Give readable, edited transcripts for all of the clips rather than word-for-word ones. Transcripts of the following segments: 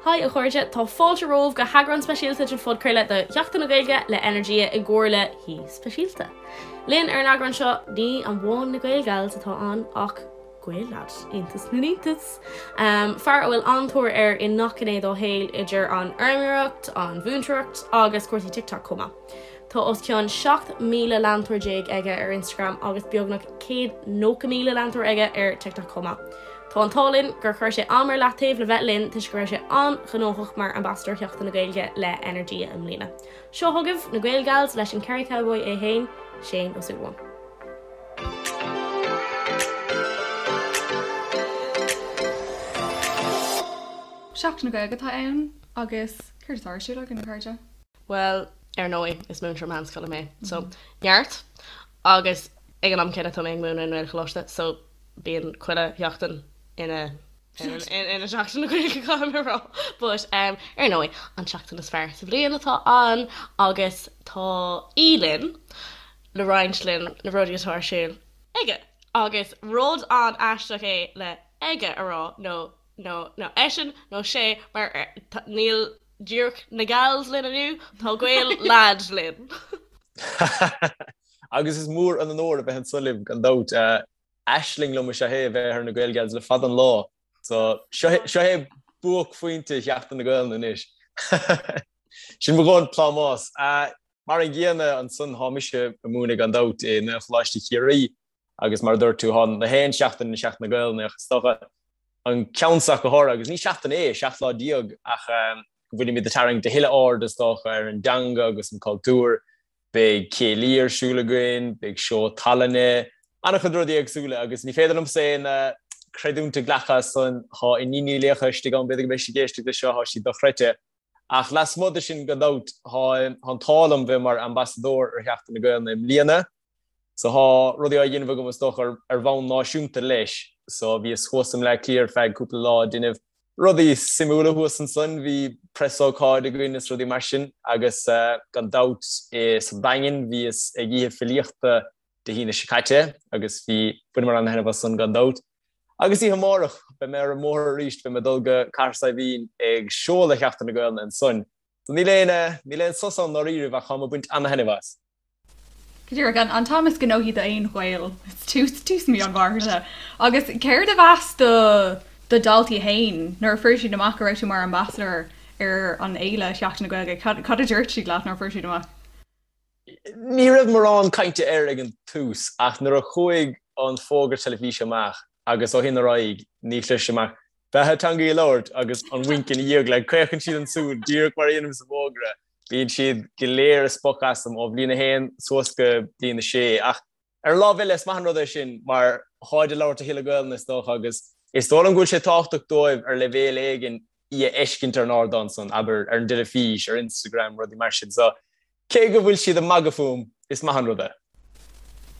Haigh a chairde, tá fáilte romhaibh go heagrán speisialta den phodchraoladh de Sheachtain na Gaeilge le Energia i gcomhar le haoi speisialta. Linn ar an eagrán seo, ní amháin na Gaelgals atá ann ach Gael-lad, iontas na n-iontas! Fear a bhfuil an-tóir air i ngach gné dá shaol idir an fheirmeoireacht, an mhúinteoireacht agus cúrsaí TikTok chomh maith. Tá os cionn 17 mhíle leantóir aige ar Instagram agus beagnach 190,000 leantóir aige ar TikTok chomh maith. Tá an t-ádh linn gur chuir sé am ar leataobh le bheith linn toisc go raibh sé an-ghnóthach mar Ambasadóir Sheachtain na Gaeilge le Energia i mbliana. Seo chugaibh na Gaelgals leis an Kerry Cowboy é féin, Shane Ó Súilleabháin. Seachtain na Gaeilge atá ann agus céard atá ar siúl againn, a chairde? Bhuel, ar ndóigh, is múinteoir meánscoile mé, so neart agus ag an am céanna tá mé ag múineadh i nGaelcholáiste, so bíonn chuile sheachtain ina ina Seachtain na Gaeilge caithfidh mé a rá. But um, ar ndóigh, an tseachtain is fearr sa bhliain atá ann agus tá aoi linn le roinnt linn na rudaí atá ar siúl aige. Agus rud an-aisteach é le aige a rá nó nó nó eisean nó sé mar níl díreach na gals linn inniu, tá Gael-lad linn. Agus is mór an onóir a bheith anso libh gan dabht. Aisling liom is ea é a bheith ar na Gaelgals le fada an lá. So seo é buaicphointe Sheachtain na Gaelainne anois. Sin mo dhóthain plámás. Mar an gcéanna ansan thá mise ag múineadh gan dabht i nGaelcholáiste Chiarraí agus mar a dúirt tú thá na haon seachtain ina Seachtain na Gaelainne ach is dócha an ceann seo go háirithe agus ní seachtain é, 17 lá ach go bhfuilimid ag tarraingt a thuilleadh aird is dócha ar an dteanga agus an cultúr. Beidh céilí ar siúl againn, beidh seó tallainne, an-chuid rudaí éagsúla agus ní féidir liomsa aon creidiúint a ghlacadh as san, thá iníon Uí Laocha istigh ann, b'fhéidir go mbeidh sí ag éisteacht leis seo, thá sí dochreidte. Ach lasmuigh de sin gan dabht, thá an t-ádh liom bheith mar ambasadóir ar Sheachtain na Gaelainne i mbliana. So thá rudaí á dhéanamh agam is dócha ar bhonn náisiúnta leis. So bhíos thuas i mBleá Cliath ar feadh cúpla lá ag déanamh rudaí suimiúla thuas ansan, bhí preasócáid againn is rudaí mar sin agus gan dabht sa Daingean bhíos ag oíche filíochta Dé hAoine seo caite agus bhí, bhaineamar an-thaitneamh as san gan dabht. Agus oíche amárach beidh mé ar an mbóthar arís, beidh mé ag dul go Cathair Saidhbhín ag seoladh Sheachtain na Gaelainne ansan. So níl aon, níl aon sos ann ndáiríribh ach táim ag baint an-thaitneamh as. Go díreach, an t-am is gnóthaí d'aon Ghael, tús tús mí an Mhárta. Agus céard a mheas do do dhaltaí féin nuair a fuair siad amach go raibh tú mar ambasadóir ar an fhéile Sheachtain na Gaeilge? Cad cad a dúirt siad leat nuair a fuair siad amach? Ní raibh mórán cainte air ag an tús ach nuair a chuaigh an fógra teilifíse amach agus ó shin ar aghaidh ní chloisim ach beatha teangaidh a labhairt agus an wink ina dhiaidh, like caochann siad an tsúil díreach mar a dhéanaim sa bhfógra. Bíonn siad go léir ag spochadh asam ó bhliain a haon suas go bliain a sé ach ar an lámh eile is maith an rud é sin mar tháid ag labhairt a thuilleadh Gaelainne is dócha agus is dóigh liom go bhfuil sé tábhachtach dóibh ar leibhéal éigin í a fheiscint ar an ardán san, abair, ar an dteilifís, ar Instagram, rudaí mar sin. So, cé go bhfuil siad ag magadh fúm, is maith an rud é.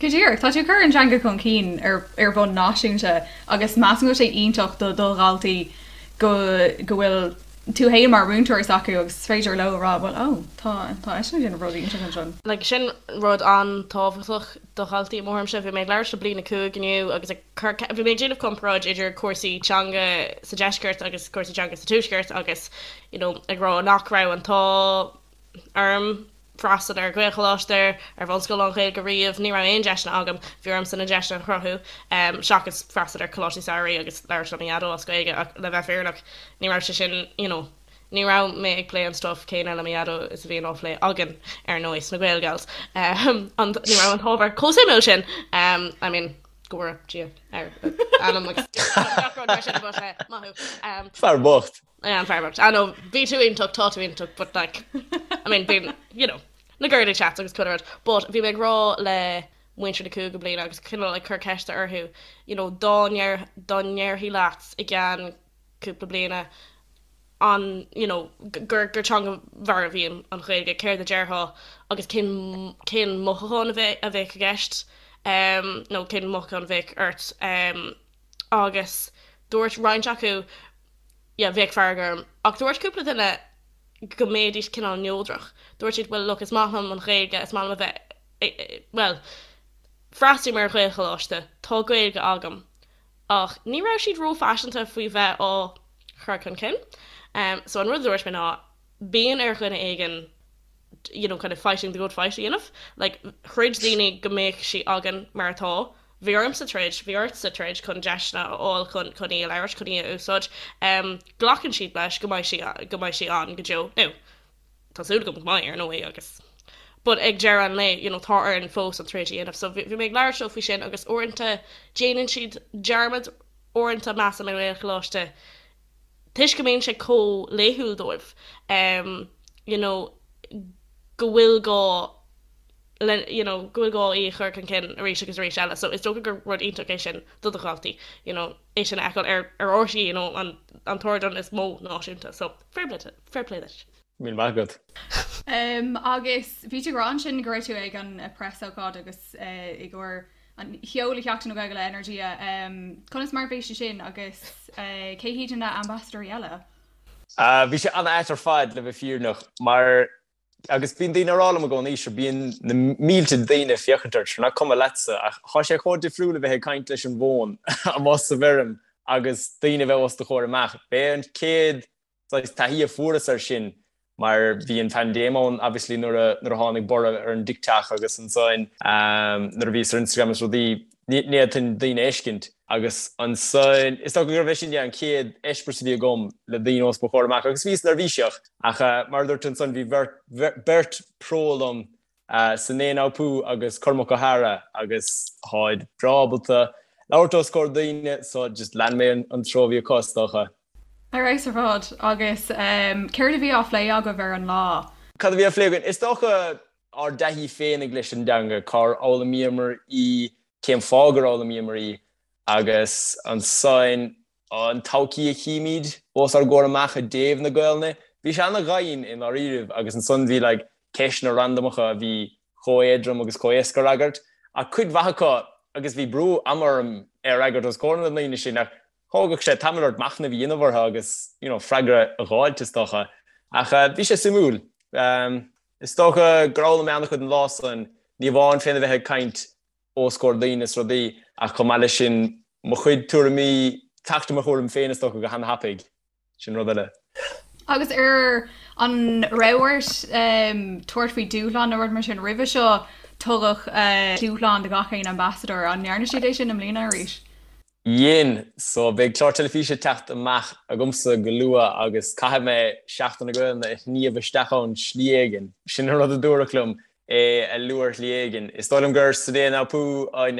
Go díreach, tá tú ag cur an teanga chun cinn ar ar bhonn náisiúnta agus measaim go bhfuil sé iontach do do dhaltaí go go bhfuil tú fhéin mar mhúinteoir s'acu agus is féidir leo a rá bhuel ó tá tá eisean ag déanamh rudaí iontach ansin. Like sin rud an-tábhachtach do dhaltaí i mo thuairimse. Bhí mé ag labhairt le bliain 5 inniu agus ag cur bhí mé ag déanamh comparáid idir cúrsaí teanga sa deisceart agus cúrsaí teanga sa tuaisceart agus you know ag rá nach raibh an t-ádh orm freastal ar Ghaelcholáiste, ar bhunscoil lán-Ghaeilge riamh, ní raibh aon deiseanna agam, bhí ormsa na deiseanna a chruthú, seachas freastal ar choláistí samhraidh agus labhairt le mo dhaideo as Gaeilge ach le bheith fírinneach ní raibh sé sin you know ní raibh mé ag plé an stuff céanna le mo dhaideo is a bhíonn á phlé againn ar ndóigh sna Gaelgals. An ní raibh an t-ábhar chomh suimiúil sin I mean go bhfóire Dia ar anam agus gach rud mar sin but maith thú. Fear bocht. Yeah, an fear bocht. I know, bhí tú iontach, tá tú iontach, but like, I mean, bíonn, you know, na girly chats agus chuile rud. But bhí mé ag rá le muintir na cúigiú bliana agus cineál ag cur ceiste orthu, you know, dá ndeir, dá ndéarfaí leat i gceann cúpla bliana an, you know, gur, gur teanga mharbh í an Ghaeilge, céard a déarfá agus cén, cén mothúchán a bheadh, a bheadh i gceist, um, nó cén mothúchán a bheadh ort, um, agus dúirt roinnt acu, yeah, bheadh fearg orm. Ach dúirt cúpla duine go mbeidís cineál neodrach. Dúirt siad, bhuel, look, is maith liom an Ghaeilge, is maith liom a bheith, bhuel, freastalaím ar Ghaelcholáiste, tá Gaeilge agam. Ach ní raibh siad róphaiseanta faoi bheith á chur chun cinn. So an rud a dúirt mé ná bíonn ar dhuine éigin you know kind of fighting the good fight a dhéanamh. Like throid daoine go mbeadh sí againn mar atá. Bhí ormsa troid, bhí ortsa troid chun deiseanna a fháil chun chun í a labhairt, chun í a úsáid. Glacann siad leis go mbeidh sí go mbeidh sí ann go deo. Now tá súil agam go mbeidh ar ndóigh agus but ag deireadh an lae you know tá orainn fós an troid a dhéanamh. So bhí mé ag labhairt leo faoi sin agus uaireanta déanann siad dearmad uaireanta measaim i nGaelcholáiste toisc go mbíonn sé chomh laethúil dóibh you know go bhfuil gá le you know go bhfuil gá í a chur chun cinn arís agus arís eile so is dócha gur rud iontach é sin do do dhaltaí you know é sin a fheiceáil ar ar RTÉ you know an an t-ardán is mó náisiúnta so fair play fair play duit. Míle maith agat. Um, agus bhí tú ag rá ansin go raibh tú ag an preasócáid agus uh, i gcomhair an sheoladh Sheachtain na Gaeilge le Energia. Conas mar a bhí sé sin agus cé hiad na ambasadóirí eile? Bhí sé an-ait ar fad le bheith fírinneach mar agus bíonn daoine ag rá liom i gcónaí sure bíonn na mílte daoine ag féachaint ort sure nach cuma leatsa ach tá sé chomh difriúil a bheith ag caint leis an bhfón amuigh sa bhfeirm agus daoine a bheith os do chomhair amach. B'é an chéad saghas taithí a fuaireas air sin mar bhí an phaindéim ann obviously nuair a nuair a tháinig borradh ar an TikTok agus ansan nuair a bhíos ar Instagram is rudaí ní fhéadfainn daoine a fheiscint agus ansan is dócha gurbh é sin yeah an chéad eispéireas a bhí agam le daoine os mo chomhair amach agus bhíos neirbhíseach ach mar a dúirt ansan bhí bheirt beirt pro liom Sinéad O'Pú agus Cormac Ó hEadhra agus táid breá ábalta labhairt os comhair daoine so just lean mé an treo a bhí acu is dócha. Ar fheabhas ar fad. Agus céard a bhí á phlé agaibh ar an lá? Cad a bhí á phlé againn? Is dócha ár dtaithí féinig leis an dteanga, cár fhoghlaimíomar í, cén fáth gur fhoghlaimíomar í agus ansan an todhchaí a chímid os ár gcomhair amach i dtaobh na Gaelainne. Bhí sé ana-dhoimhin i ndáiríribh agus ansan bhí like ceisteanna randamacha a bhí chomh éadrom agus chomh éasca a fhreagairt ach cuid mhaith acu agus bhí brú ama orm é a fhreagairt os comhair na ndaoine sin ach thógadh sé tamall ort machnamh a dhéanamh orthu agus you know freagra a dh'fháilt is dócha. Ach bhí sé suimiúil. Is dócha gur fhoghlaim mé an-chuid an lá san, ní amháin féna bheith ag caint os comhair daoine is rudaí, ach chomh maith leis sin, mo chuid tuairimí, teacht i mo thuairim féin is dócha go han-thapaidh. Sin rud eile. Agus ar an raibh ort tabhairt faoi dúshlán nó rud mar sin roimhe seo, tugadh dúshlán do gach aon ambasadóir, an ndearna siad é sin i mbliana arís? Dhein. So beidh clár teilifíse ag teacht amach agamsa go luath agus caithfidh mé Seachtain na Gaelainne a shníomh isteach ann slí éigin. Sin an rud a dúradh liom, é a lua ar shlí éigin. Is dóigh liom gur Sinéad Naupoo an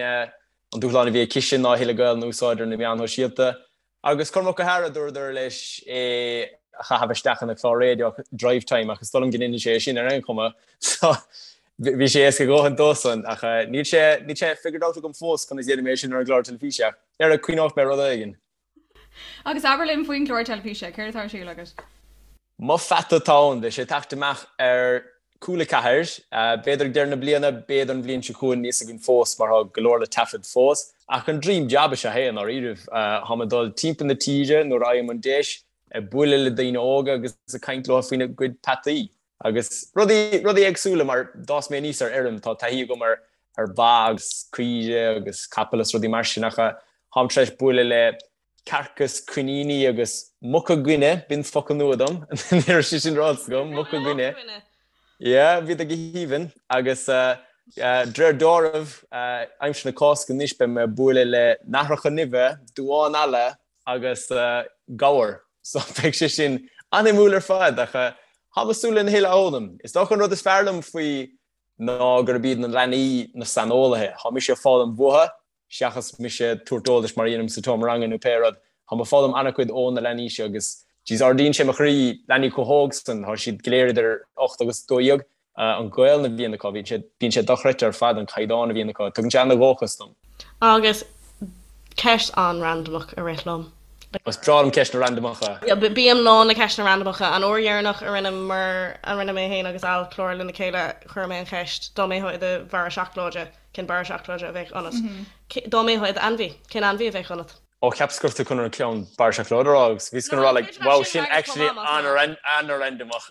dúshlán a bhí aici ná a thuilleadh Gaelainne a úsáid ar na meáin shóisialta. Agus Cormac Ó hEadhra, dúradar leis é a chaitheamh isteach ina chlár raidió Drivetime ach is dóigh liom go ndéanann sé é sin ar aon chuma. So bhí sé éasca a dhóthain dósan ach níl sé níl sé figured out agam fós conas a dhéanfaidh mé é sin ar an gclár teilifíse ach ar cuimhneoidh mé rud éigin. Agus abair linn faoin gclár teilifíse, céard atá ar siúl agat? Mo Pheata atá ann, beidh sé ag teacht amach ar Cúla 4, b'fhéidir ag deireadh na bliana, b'fhéidir an bhliain seo chugainn, níl a fhios againn fós mar tá go leor le taifead fós. Ach an dream job is ea é i ndáiríribh. Táim ag dul timpeall na tíre nuair a fhaighim an deis, ag bualadh le daoine óga agus ag caint leo faoina gcuid peataí agus rudaí, rudaí éagsúla mar d'fhás mé aníos ar fheirm, tá taithí agam ar ar ba agus caoire agus capaill is rudaí mar sin ach táim tar éis bualadh le cearca is coiníní agus muca guine, b'in focal nua dom, ní raibh sé sin ráite agam, muca guine. Yeah, bhíodar go haoibhinn agus de réir dealraimh, aimsir na Cásca anois beidh mé ag bualadh le nathracha nimhe, duáin alla agus gabhar. So beidh sé sin an-shuimiúil ar fad ach táim ag súil lena thuilleadh a fhoghlaim. Is dócha an rud is fearr liom faoi ná gurb iad na leanaí na saineolaithe. Tá mise ag foghlaim uathu seachas mise ag tabhairt eolais mar a dhéanaim sa tseomra ranga nó pé rud. Táim ag foghlaim an-chuid ó na leanaí seo agus jeez ardaíonn sé mo chroí, leanaí chomh hóg san, tá siad go léir idir 8 agus 12, an Ghaelainn a bhíonn acu, bíonn sé, bíonn sé dochreidte ar fad an caighdeán a bhíonn acu, tugann sé an-dhóchas dom. Agus ceist an-randamach a rith liom. Is breá liom ceisteanna randamacha. Bím lán le ceisteanna randamacha. An uair dheireanach a rinneamar, a rinne mé féin agus Al clár lena chéile, chuir mé an cheist, dá mbeifeá i do bharra seacláide, Cén barra seacláide a bheadh ionat? Dá mbeifeá i d'ainmhí, cén ainmhí a bheadh ionat? Ó, cheapas go raibh tú chun an ceann barra seacláide a rá agus bhíos chun a rá like, wow, sin actually an-randamach.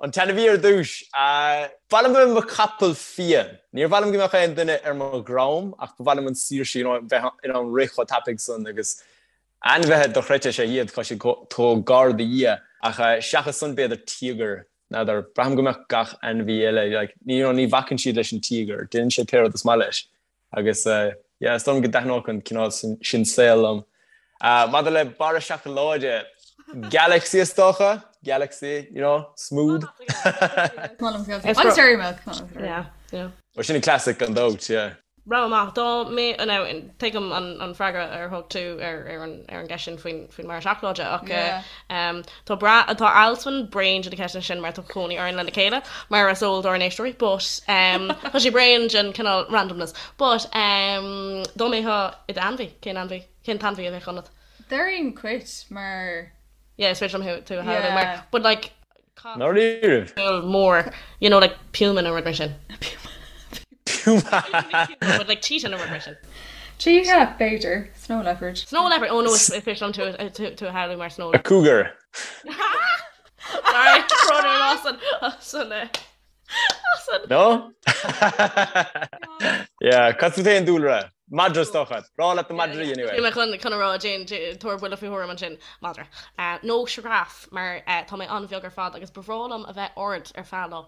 An t-ainmhí ar dtús. Ba mhaith liom bheith i mo chapall fiain. Níor mhaith liom go mbeadh aon duine ar mo dhroim ach ba mhaith liom an saoirse, you know, bheith in ann rith chomh tapaidh san agus. Ainmhithe dochreidte is ea iad, tá siad chomh gar do Dhia, ach seachas san b'fhéidir tíogar, n'fheadar, braithim go mbeadh gach ainmhí eile, like, you know, ní bhacann siad leis an tíogar, déanann sé pé rud is maith leis. Agus yeah, is dóigh liom go dtaitneodh an cineál sin saol liom. Maidir le barra seacláide, Galaxy is dócha, Galaxy, you know, smooth. Agus Dairy Milk. Yeah, yeah. Ó sin an classic gan dabht, yeah. Rogha maith. Dá mbeadh, now, tuigim an freagra ar thug tú ar an gceist sin faoin mbarra seacláide ach tá tá Alswyn bréan de na ceisteanna sin mar tá cónaí orainn lena chéile mar is eol dár n-éisteoirí but tá sé bréan den cineál randomness but dá mbeifeá i d'ainmhí, cén ainmhí, cén t-ainmhí a bheadh ionat? Déarfainn cait mar. Yeah, is féidir liom tú a shamhlú mar but like Cat Ndáiríribh? mór, you know, like puma nó rud mar sin. Puma! But like cheetah nó rud mar sin. Cheetah, b'fhéidir. Snow leopard. Snow leopard, oh no, is féidir liom tú tú a shamhlú mar snow A leopard. cougar. Sorry, brón orm as an, as an, eh, as an. No? Yeah, cad fút féin Dúlra? Madra is dócha. Breá leat na madraí anyway. Bhí mé chun chun a rá déan tabhair buille faoi thuairim ansin, madra. Nó sioráf mar tá mé an-bheag ar fad agus ba bhreá liom a bheith ard ar feadh lá.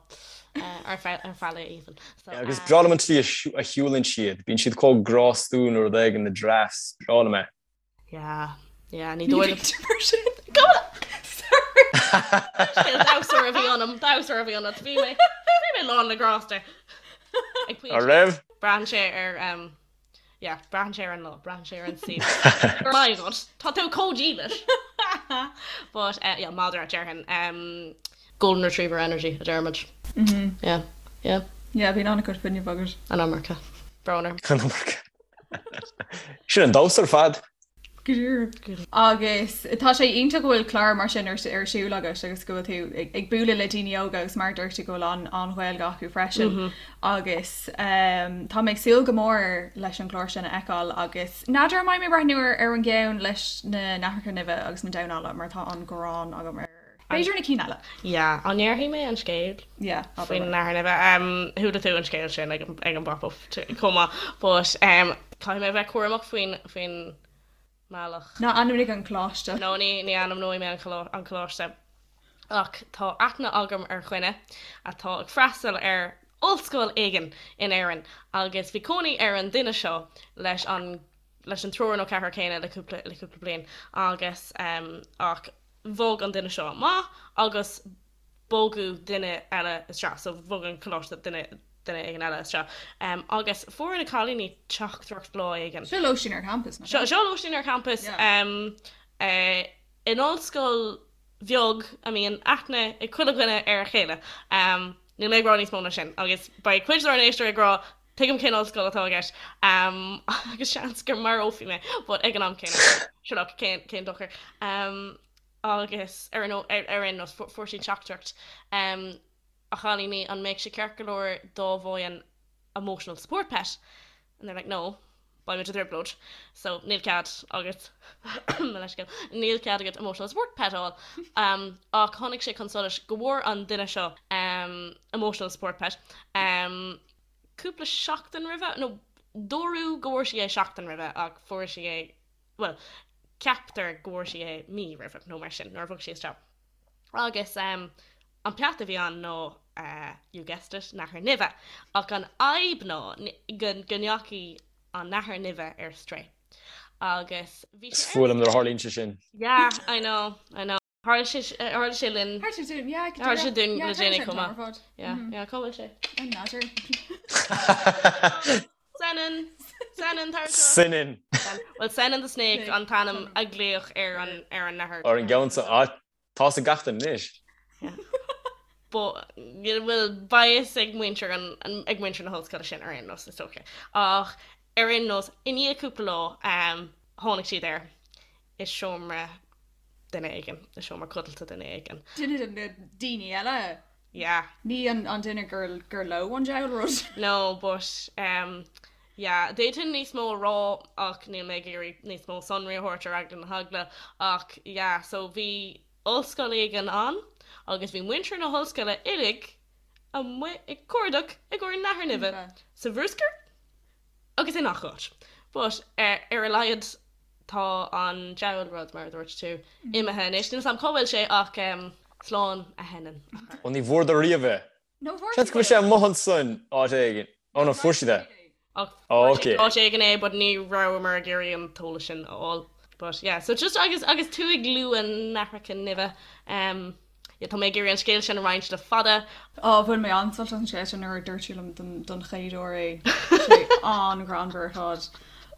Ar feadh ar feadh lae even. So, Yeah, agus breá liom an tslí a shiúlann siad. Bíonn siad chomh grástúil nó rud éigin na giraffes. Breá liom é. Yeah, yeah, ní dóigh liom. Mar sin. Go! Sorry. Damhsóir a bhí ionam, damhsóir a bhí ionat. Bhí mé, bhí mé lán le grásta. Ag pointe. An raibh? Braitheann sé ar, um, yeah, braitheann sé ar an lá, braitheann sé ar an saol. My God, tá tú chomh dílis. But, uh, yeah, madra, déarfainn. Um, golden retriever energy, a deirimid. Yeah, yeah. Yeah, bíonn an-chuid fuinnimh agat. An iomarca. Brón orm. An iomarca. Sin an damhsa ar fad. Go díreach. Agus tá sé iontach go bhfuil clár mar sin ar siúl agat agus go bhfuil tú ag bualadh le daoine óga agus mar a dúirt tú go bhfuil an-Ghaeilge acu freisin. Agus tá mé ag súil go mór leis an gclár sin a fheiceáil agus n'fheadar an mbeidh mé ag breathnú ar an gceann leis na nathracha nimhe agus na damhán alla mar tá an ghráin agam ar B'fhéidir na cinn eile. Yeah, an ndéarfaidh mé an scéal? Yeah, abair. Faoin nathair nimhe. Um, chuala tú an scéal sin ag, ag an bpop-up chomh maith, but um, caithfidh mé a bheith cúramach faoin, faoin mbealach. Ná ainmnigh an coláiste. No, ní, ní ainmneoidh mé an, an coláiste. Ach tá aithne agam ar dhuine atá ag freastal ar ollscoil éigin in Éirinn agus bhí cónaí ar an duine seo leis an, leis an triúr nó ceathrar céanna le cúpla, le cúpla bliain agus um, ach bhog an duine seo amach agus bogadh duine eile isteach, so bhog an coláiste duine duine éigin eile isteach. Um, agus fuair na cailíní teachtaireacht lá éigin. Seo lóistín ar campas, nach ea? Seo lóistín ar campas yeah. um, uh, in ollscoil bheag a mbíonn aithne ag chuile dhuine ar a chéile. Um, níl mé ag rá níos mó ná sin, agus beidh cuid dár n-éisteoirí ag rá Tuigim cén ollscoil atá i gceist agus seans go marófaí mé but ag an am céanna sure look cén cén dochar. Agus ar an ar aon nós fuair siad teachtaireacht a chailíní an mbeadh sé ceart go leor dá bhfaighinn emotional support pet and they're like no beimid i dtrioblóid so níl cead agat mo leithscéal níl cead agat emotional support pet a fháil ach tháinig sé chun solais go bhfuair an duine seo emotional support pet cúpla seachtain roimhe, nó dúradh go bhfuair sí é seachtain roimhe ach fuair sí é, bhuel, ceaptar go bhfuair sí é mí roimhe nó mar sin, nuair a bhog sí isteach. Agus an peata a bhí ann ná, you guessed it, nathair nimhe. Ach an fhadhb ná go ndeachaigh an nathair nimhe ar strae. Agus bhí sé ar. Is fuath liom nuair a tharlaíonn sé sin. Yeah, I know, I know. Tharla sé, tharla sé linn. Tharla sé dúinn, yeah. Tharla sé dúinn le déanaí chomh maith. Yeah, yeah, cá bhfuil sé? An nádúr. Senan! Senan, tar anseo. Senan! Well, Senan the Snake an t-ainm a glaodh ar an, ar an nathair. Ar an gceann sa, ah, tá's ag gach duine anois. Yeah. But, bhuel, beidh fhios ag muintir an, ag muintir na hollscoile sin ar aon nós, is dócha. Ach, ar aon nós, i ndiaidh cúpla lá, tháinig siad air i seomra duine éigin, i seomra codlata duine éigin. Duine de na daoine eile? Yeah. Ní an duine gur leo an diabhal rud? No, but um, yeah, d'fhéadfainn níos mó a rá ach níl mé ag iarraidh níos mó sonraí a thabhairt ar eagla na heagla ach yeah, so bhí ollscoil éigin ann agus bhí muintir na hollscoile uilig amuigh ag cuardach i gcomhair nathair nimhe sa bhruscar agus i ngach áit. But ar a laghad. Tá an diabhal rud, mar a dúirt tú, imithe anois. Níl 's a'm cá bhfuil sé ach slán a Shenan. Ó ní bhfuaireadar riamh é. Seans go bhfuil sé amuigh ansan áit éigin. Ó no, fuair siad é. Ach fuair siad áit éigin é but ní rabhamar ag iarraidh an t-eolas sin a fháil. But yeah, so just agus agus tú ag lua nathracha nimhe, um, yeah, tá mé ag iarraidh an scéal sin a roinnt le fada. Á, bhain mé an-sult as an scéal sin nuair a dúirt tú liom don don chéad uair é. Tá sé an-ghreannmhar ar fad.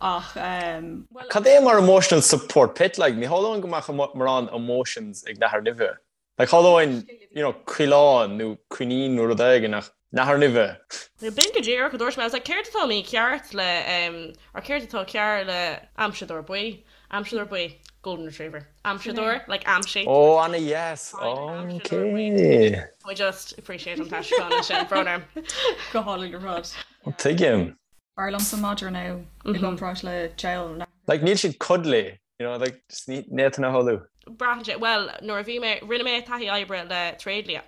Ach, um, well. Cad é mar emotional support pet like? Ní shamhlóinn go mbeadh mórán emotions ag nathair nimhe. Like shamhlóinn, you know, coileán nó coinín nó rud éigin ach nathair nimhe. B'in go díreach a dúirt mé. I was like, céard atá mícheart le, em, or céard atá cearr le aimseadóir buí? Aimseadóir buí, golden retriever. Aimseadóir, like aimsigh. Ó, ana dheas. Ok. I just appreciate an t-aistriúchán ansin, brón orm. Go hálainn ar fad. Tuigim. B'fhearr liomsa madra now i gcomparáid le diabhal. Like níl siad cuddly. You know, like, just ní fhéadfainn a shamhlú. Braitheann sé, bhuel, nuair a bhí mé, rinne mé taithí oibre le tréidlia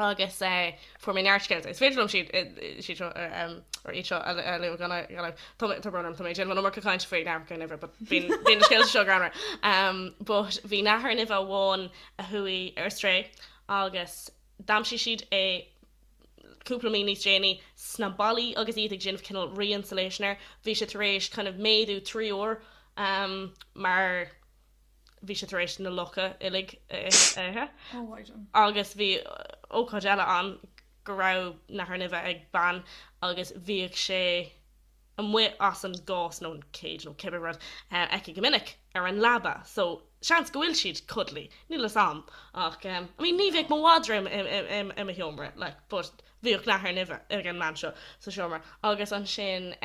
agus eh, fuair mé neart scéalta. Is féidir liom siad, siad seo, or iad seo a lua gan gan tá mé, tá brón orm, tá mé ag déanamh an iomarca cainte faoi nathracha nimhe, but bíonn, bíonn na scéalta seo greannmhar. Um, but bhí nathair nimhe amháin a chuaigh ar strae agus d'aimsigh siad é cúpla mí níos déanaí sna ballaí agus iad ag déanamh cineál re-insulation air, bhí sé tar éis kind of méadú 3 uair mar bhí sé tar éis na lucha uilig a ithe. Agus bhí ócáid eile ann go raibh nathair nimhe ag bean agus bhíodh sé amuigh as an gcás nó an cage nó cibé rud aici go minic ar an leaba so seans go bhfuil siad cuddly, níl fhios a'm ach I mean ní bheadh mo mhadra i mo sheomra like but bhíodh nathair nimhe ag an mbean seo sa seomra agus ansin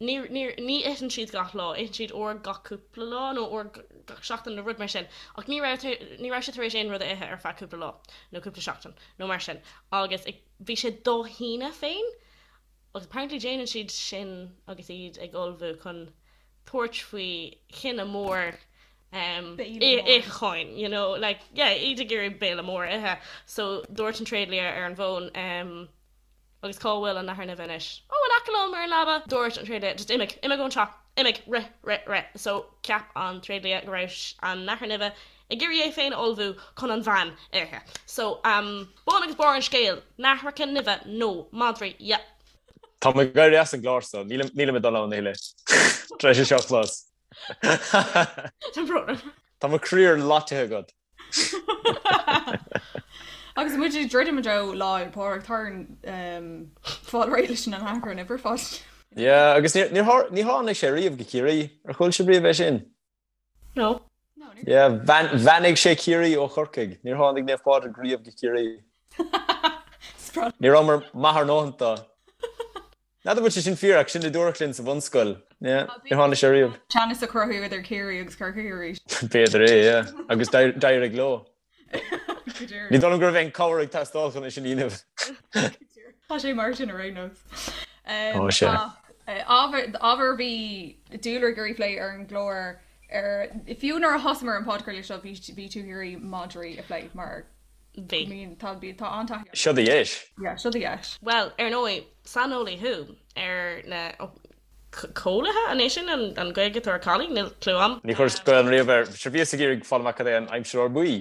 ní ní ní itheann siad gach lá, itheann siad uair gach cúpla lá nó uair gach seachtain nó rud mar sin ach ní raibh ní raibh sé tar éis aon rud a ithe ar feadh cúpla lá nó cúpla seachtain nó mar sin agus bhí sé dá shíneadh féin Agus apparently déanann siad sin agus iad ag ullmhú chun tabhairt faoi thine mór itheacháin, you know, like, yeah, iad ag iarraidh béile mór a ithe. So dúirt an tréidlia ar an bhfón, agus cá bhfuil an nathair nimhe anois? Oh, in aice liom ar an leaba! Dúirt an tréidlia, just imigh, imigh ón teach, imigh, rith, rith, rith. So cheap an tréidlia go raibh an nathair nimhe ag iarraidh é féin a ullmhú chun an bhean a ithe. So, um, bun agus barr an scéil, nathracha nimhe nó madraí, yep. Tá mé ag éirí as an gclár so, nílim nílim ag dul ann a thuilleadh. Tar éis é seo a chlos. Tá brón orm. Tá mo chroí ar loiteadh agat. Agus muid ag druidim i dtreo Lá Fhéile Pádraig, tá orainn um, fáil réidh leis na nathracha nimhe ar fad. Yeah, agus níor níor ní tháinig sé riamh go Ciarraí. Ar chuala sibh riamh é sin? No. Yeah, bheannaigh sé Ciarraí ó Chorcaigh. Níor tháinig Naomh Pádraig riamh go Ciarraí. Ní rabhamar maith ár ndóthain dó. N'fheadar an bhfuil sé sin fíor ach sin a dúradh linn sa bhunscoil. Yeah, níor tháinig sé riamh. Teannas a chruthú idir Ciarraí agus Corcaigh arís. B'fhéidir é, yeah. Agus d'éirigh leo. Ní dóigh liom go raibh aon cabhair ag teastáil chun é sin a dhéanamh. Tá sé mar sin ar aon nós. Tá sé. Ábhar a bhí dúlra ag iarraidh plé ar an gclár ar fiú nuair a thosaíomar an podchraoladh seo bhí bhí tú ag iarraidh madraí a phlé mar Bhí. mean tá bhí tá an-taithí Seo do dheis. Yeah, seo do dheis. Bhuel, ar ndóigh, saineolaí thú ar na cóilithe, an é sin an Ghaeilge atá ar collie? Níl clue a'm. Ní chuireas Gaelainn riamh air. Sure bhíos ag iarraidh fáil amach cad é an aimseadóir buí.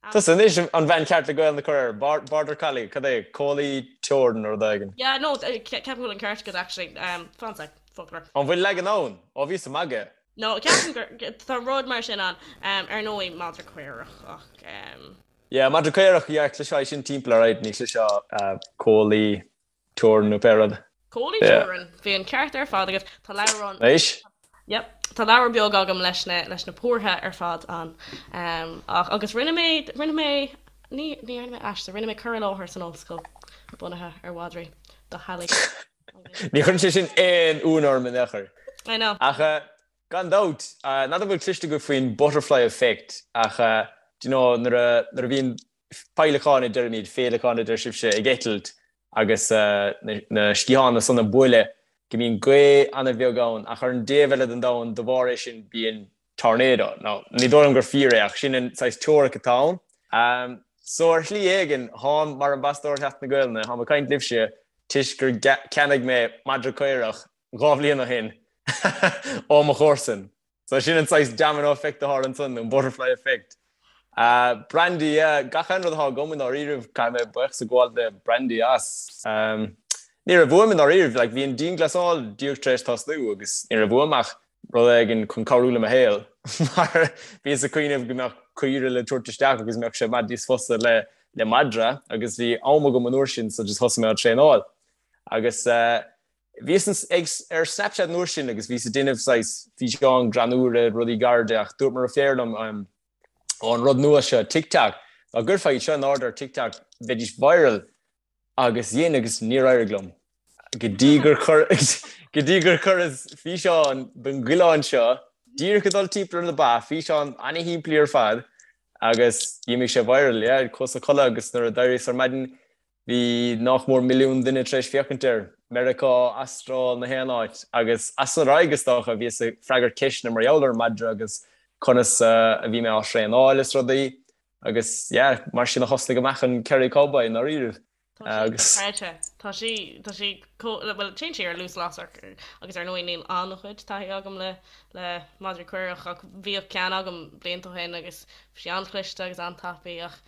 Tusa anois an bhean cheart le Gaelainn a chur air. Border collie, cad é? Cóilí teorann nó rud éigin. Yeah, no, ceapaim go bhfuil an ceart agat actually. Fan sec, foclóir. An bhfuil leagan ann? Ó bhíos ag magadh. No, ceapaim gur, tá rud mar sin ann. Ar ndóigh, madra caorach ach. Yeah, madra caorach, yeah, chloisfeá é sin timpeall alright, ní chloisfeá cóilí teorann nó pé rud. Cóilí teorann, bhí an ceart ar fad agat. Tá leabhrán. Anois? Yep. Tá leabhar beag agam leis na, leis na pórtha ar fad ann. Ach, agus rinne mé, rinne mé, ní, ní rinne mé aiste, rinne mé cur i láthair san ollscoil bunaithe ar mhadraí do theaghlaigh. Ní chuireann sé sin aon ionadh orm in aon chor. I know. Ach gan dabht, n'fheadar an bhfuil cloiste agaibh faoin butterfly effect ach do you know nuair a, nuair a bhíonn féileacáin a deirimid, féileacáin a deir sibhse, ag eitilt agus na sciatháin san ag bualadh, go mbíonn gaoth an-bheag ann ach ar an dtaobh eile den domhan de bharr é sin bíonn tornado. Now, ní dóigh liom gur fíor é ach sin an saghas teoiric atá ann. So ar shlí éigin, tháim mar ambasadóir Sheachtain na Gaelainne, tháim ag caint libhse toisc gur cheannaigh mé madra caorach dhá bhliain ó shin ó mo chomharsan. So sin an saghas domino effect atá ansan, an butterfly effect. Brandy, yeah, gach aon rud atá agam i ndáiríribh, caithfidh mé buíochas a ghabháil le Brandy as. Ní raibh uaim i ndáiríribh, like bhí an dianghlasáil díreach tar éis tosnú agus ní raibh uaim ach rud éigin chun cabhrú le mo shaol mar bhíos ag cuimhneamh go mbeadh caoire le tabhairt isteach agus mbeadh sé i bhfad níos fusa le le madra agus bhí am agam an uair sin so just thosaigh mé á traenáil agus Bhíos ag ar Snapchat an uair sin agus bhíos ag déanamh saghas físeáin greannúra, rudaí gairide ach dúirt mo dheirfiúr liom ó an rud nua seo TikTok, dá gcuirfeá iad seo in airde ar TikTok bheidís viral agus dhein agus níor éirigh liom go dtí gur chuir go dtí gur chuireas físeán den gcoileán seo díreach ag dul timpeall ar na ba, físeán ana-shimplí ar fad agus d'imigh sé viral, yeah, chuas a chodladh agus nuair a d'éiríos ar maidin Bhí nách mór milliún duine tar éis féachaint air, Meiriceá, Astráil, na haon áit, agus as san ar aghaidh, is dócha, bhíos ag freagairt ceisteanna mar gheall ar an madra agus conas a bhí mé á thraenáil is rudaí, agus yeah, mar sin a thosnaigh amach an Kerry Cowboy i ndáiríribh. Tá sí dochreidte. Tá sí, tá sí chomh, bhuel, téann sí ar luas lasrach agus ar ndóigh níl an-chuid taithí agam le, le madraí caorach ach bhíodh ceann agam blianta ó shin agus bhí sí an-chliste agus an-tapaidh ach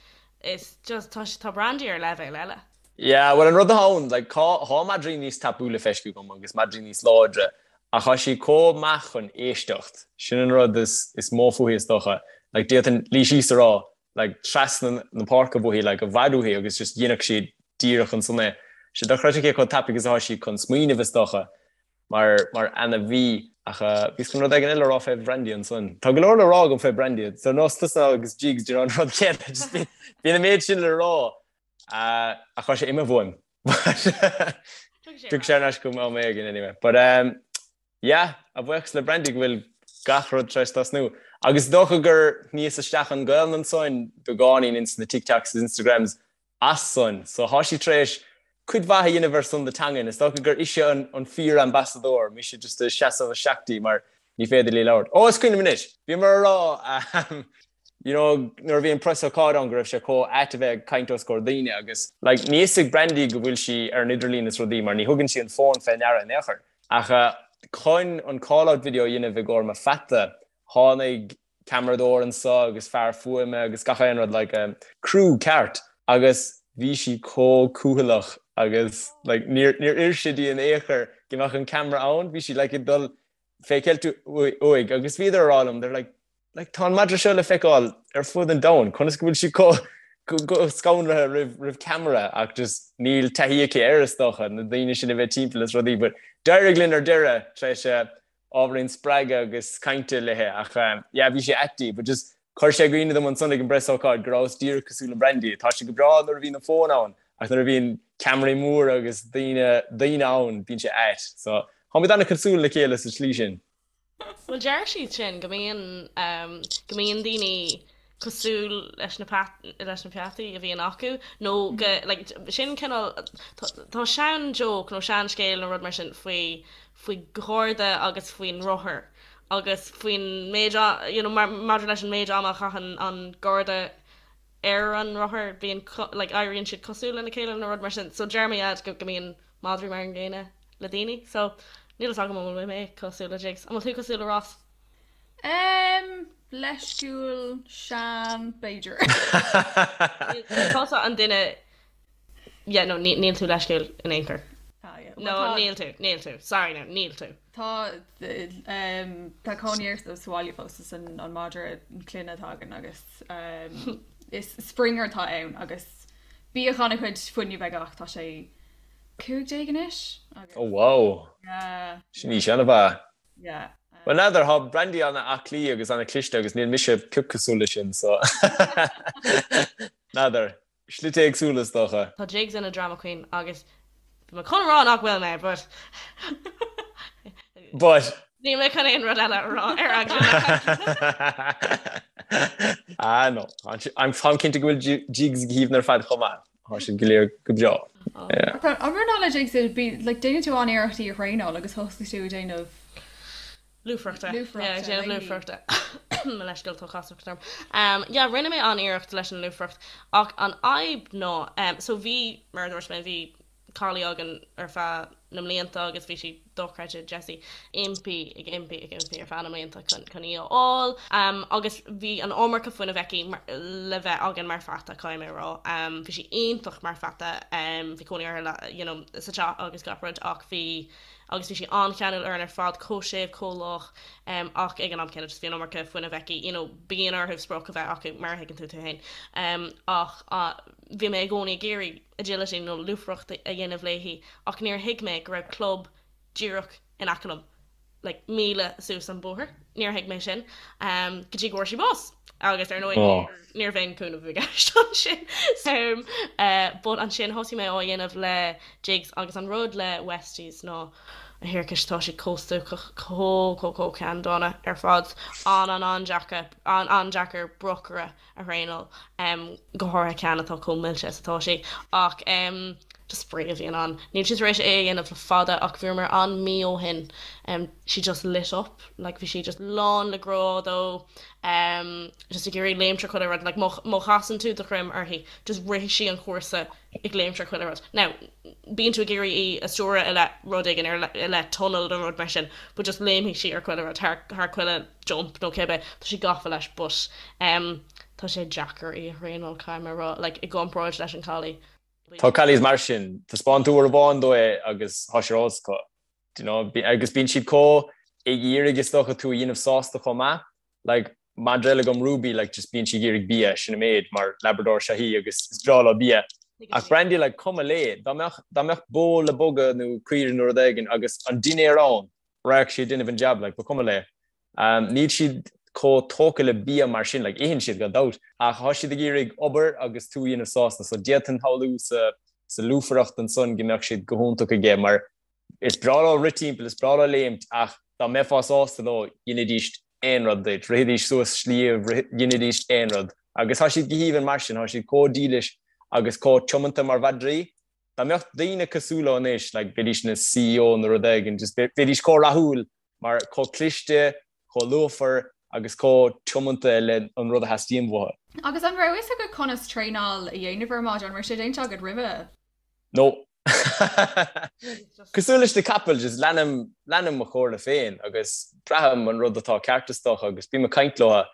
Is just, tá, tá Brandy ar leibhéal eile. Yeah, bhuel an rud atá ann, like, tá, tá madraí níos tapúla feicthe agam agus madraí níos láidre, ach tá sí chomh maith chun éisteacht. Sin an rud is, is mó fúithi is dócha. Like, d'fhéadfainn luí síos a rá, like, trasna na páirce fúithi, like, i bhfad uaithi agus just dhéanfadh sí díreach ansan é. Sé dochreidte cé chomh tapaidh is atá sí chun smaoineamh is dócha. Mar, mar ainmhí. Ach bhíos chun rud éigin eile a rá fé Bhrandy ansan. Tá go leor le rá agam fé Brandy. Ar nós tusa agus Jigs, do you know, an rud céanna. Just bíonn, bíonn an méid sin le rá. Ach tá sé imithe uaim. Tiocfaidh sé ar ais chugam am éigin anyway. But um, yeah, a bhuíochas le Brandy go bhfuil gach rud tar éis tosnú. Agus is dócha gur shníos isteach an Ghaelainn ansan beagáinín ins na TikToks is Instagrams as san. So thá sí tar éis cuid mhaith a dhéanamh ar son na teangan. Is dócha gur ise an an fíor-ambasadóir, mise just ag seasamh isteach di mar ní féidir léi labhairt. Ó, is cuimhin liom anois! Bhíomar a rá you know nuair a bhí an preasócáid ann go raibh sé chomh ait a bheith ag caint os comhair daoine agus like níl fhios ag Brandy go bhfuil sí ar an idirlíon is rudaí mar ní thugann sí an fón fé ndeara in aon chor. Ach chun an call-out video a dhéanamh i gcomhair mo pheata, tháinig ceamaradóir anso agus fear fuaime agus gach aon rud like crew ceart agus bhí sí chomh cúthaileach agus like níor níor oir sé di in aon chor go mbeadh an ceamara ann bhí sí like ag dul fé cheilt uaidh agus bhíodar a rá liom they're like like tá an madra seo le feiceáil ar fud an domhain conas go bhfuil sí chomh scanraithe roimh roimh ceamara ach just níl taithí aici air is dócha na daoine sin a bheith timpeall is rudaí but d'éirigh linn ar deireadh tar éis ábhairín spreagadh agus cainte léi ach yeah bhí sé ait di but just chuir sé i gcuimhne dom ansan ag an bpreasócáid go rabhas díreach cosúil le Brandy. Tá sé go breá nuair a bhíonn an fón ann ach nuair a bhíonn ceamaraí móra agus daoine daoine ann bíonn sé ait. So táimid an-chosúil le chéile sa tslí sin. Bhuel deir siad sin go mbíonn go mbíonn daoine cosúil leis na leis na peataí a bhíonn acu nó go like sin cineál tá sean joke nó sean scéal nó rud mar sin faoi faoi gharda agus faoin rothar agus faoin méid you know maidir leis an méid ama a chaitheann an garda ar an rothar bíonn like éiríonn siad cosúil lena chéile nó rud mar sin so deir mo dhaid go go mbíonn madraí mar an gcéanna le daoine so níl fhios agam an bhfuil mé cosúil le Jigs an bhfuil tú cosúil le Ross? Em, leisciúil, sean, b'fhéidir. Tusa an duine Yeah, no, níl tú leisciúil in aon chor. Ah, yeah. No, níl tú, níl tú. Sorry now, níl tú. Tá, um, tá cónaí air sa bhaile fós is an, an madra clainne atá againn agus um, is Springer atá ann agus bíodh an-chuid fuinnimh aige ach tá sé 15 anois. Agus, Oh wow. Yeah. Sin aois an-mhaith. Yeah. Well n'fheadar, tá Brandy an-aclaí agus an-chliste agus níl mise pioc cosúil leis sin, so n'fheadar. Slite éagsúla is dócha. Tá Jigs ina drama queen agus bhí mé chun a rá nach bhfuil mé but But. Níl mé chun aon rud eile a rá ar eagla na Ah no, táim cinnte go bhfuil Jigs go haoibhinn ar fad chomh maith. Tá siad go léir go breá. An rud ná le Jigs, like déanann tú an-iarracht í a thraenáil agus thosaigh tú ag déanamh Lúfaireachta. Lúfaireachta. Yeah, déanamh lúfaireachta. Mo leithscéal, tá casacht orm. Um, yeah, rinne mé an-iarracht leis an lúfaireacht ach an fhadhb ná, um, so bhí, mar a dúirt mé, bhí. collie againn ar feadh na mblianta agus bhí sí dochreidte Jessie impí ag impí ag impí ar feadh na mblianta chun chun í a fháil agus bhí an iomarca fuinnimh aici le bheith againn mar pheata caithfidh mé a rá. Bhí sí iontach mar pheata bhí cónaí uirthi you know sa teach agus gach rud ach bhí agus bhí sí an-cheanúil orainn ar fad chomh séimh chomh lách ach ag an am céanna just bhí an iomarca fuinnimh aici you know bíonn orthu sprioc a bheith acu mar a thuigeann tú tú féin ach bhí mé i gcónaí ag iarraidh agility nó lúfaireacht a dhéanamh léi ach níor thuig mé go raibh club díreach in aice liom, like míle suas an bóthar, níor thuig mé sin go dtí go bhfuair sí bás agus ar ndóigh níorbh aon cúnamh i gceist ansin. But ansin thosaigh mé á dhéanamh le Jigs agus an rud le Westies ná a thiarcais tá siad chomh stuacach, chomh chomh chomh ceanndána ar fad, an-an-an-deacair, an-an-deacair brocaire a thraenáil, go háirithe ceann atá chomh milse is atá sí. Ach just spraoi a bhíonn ann. Níl sí tar éis é a dhéanamh le fada ach bhíomar ann mí ó shin. She just lit up, like bhí sí just lán le grá dó, just ag iarraidh léimt ar chuile rud, like má chasann tú do dhroim uirthi, just rithfidh sí an cúrsa ag léimt ar chuile rud. Now, bíonn tú ag iarraidh í a stiúradh i leith rud éigin, i leith tunnel nó rud mar sin, but just léimfidh sí ar chuile rud, thar, thar chuile jump nó cibé, tá sí gafa leis but em tá sé deacair í a thraenáil, caithfidh mé a rá, like i gcomparáid leis an collie. Tá collies mar sin, taispeáin tú uair amháin dó é agus tá sé ar eolas acu, do you know, agus bíonn siad chomh ag iarraidh is dócha tú a dhéanamh sásta chomh maith. Like, madra eile agam Ruby, like, just bíonn sí ag iarraidh bia, sin an méid, mar Labrador is ea í agus is breá leo bia. Ach Brandy, like, cuma léi, dá mbeadh, dá mbeadh bó le bogadh nó caoire nó rud éigin agus an dinnéar ann, raghadh sí ag déanamh an jab, like, ba chuma léi. Um, níl siad chomh tógtha le bia mar sin, like, itheann siad gan dabht, ach tá siad ag iarraidh obair agus tú a dhéanamh sásta, so d'fhéadfainn shamhlú sa, sa lúfaireacht ansan go mbeadh siad go hiontach aige mar Is breá leo rith timpeall, is breá leo léimt ach dá mbeifeá sásta leo, dheinidís aon rud duit, rithidís suas sliabh, dheinidís aon rud. Agus tá siad go haoibhinn mar sin, tá siad chomh dílis agus chomh tiomanta mar mhadraí. Dá mbeadh daoine cosúil leo anois, like, bheidís ina CEO nó rud éigin, just bheidís chomh rathúil mar chomh cliste, chomh lúfar agus chomh tiomanta le an rud a theastaíonn uathu. Agus an raibh fhios agat conas traenáil a dhéanamh ar madra? An raibh sé déanta agat roimhe? No. Cosúil leis na capaill, just leanaim, leanaim mo chomhairle féin agus braithim an rud atá ceart is dócha agus bím ag caint leo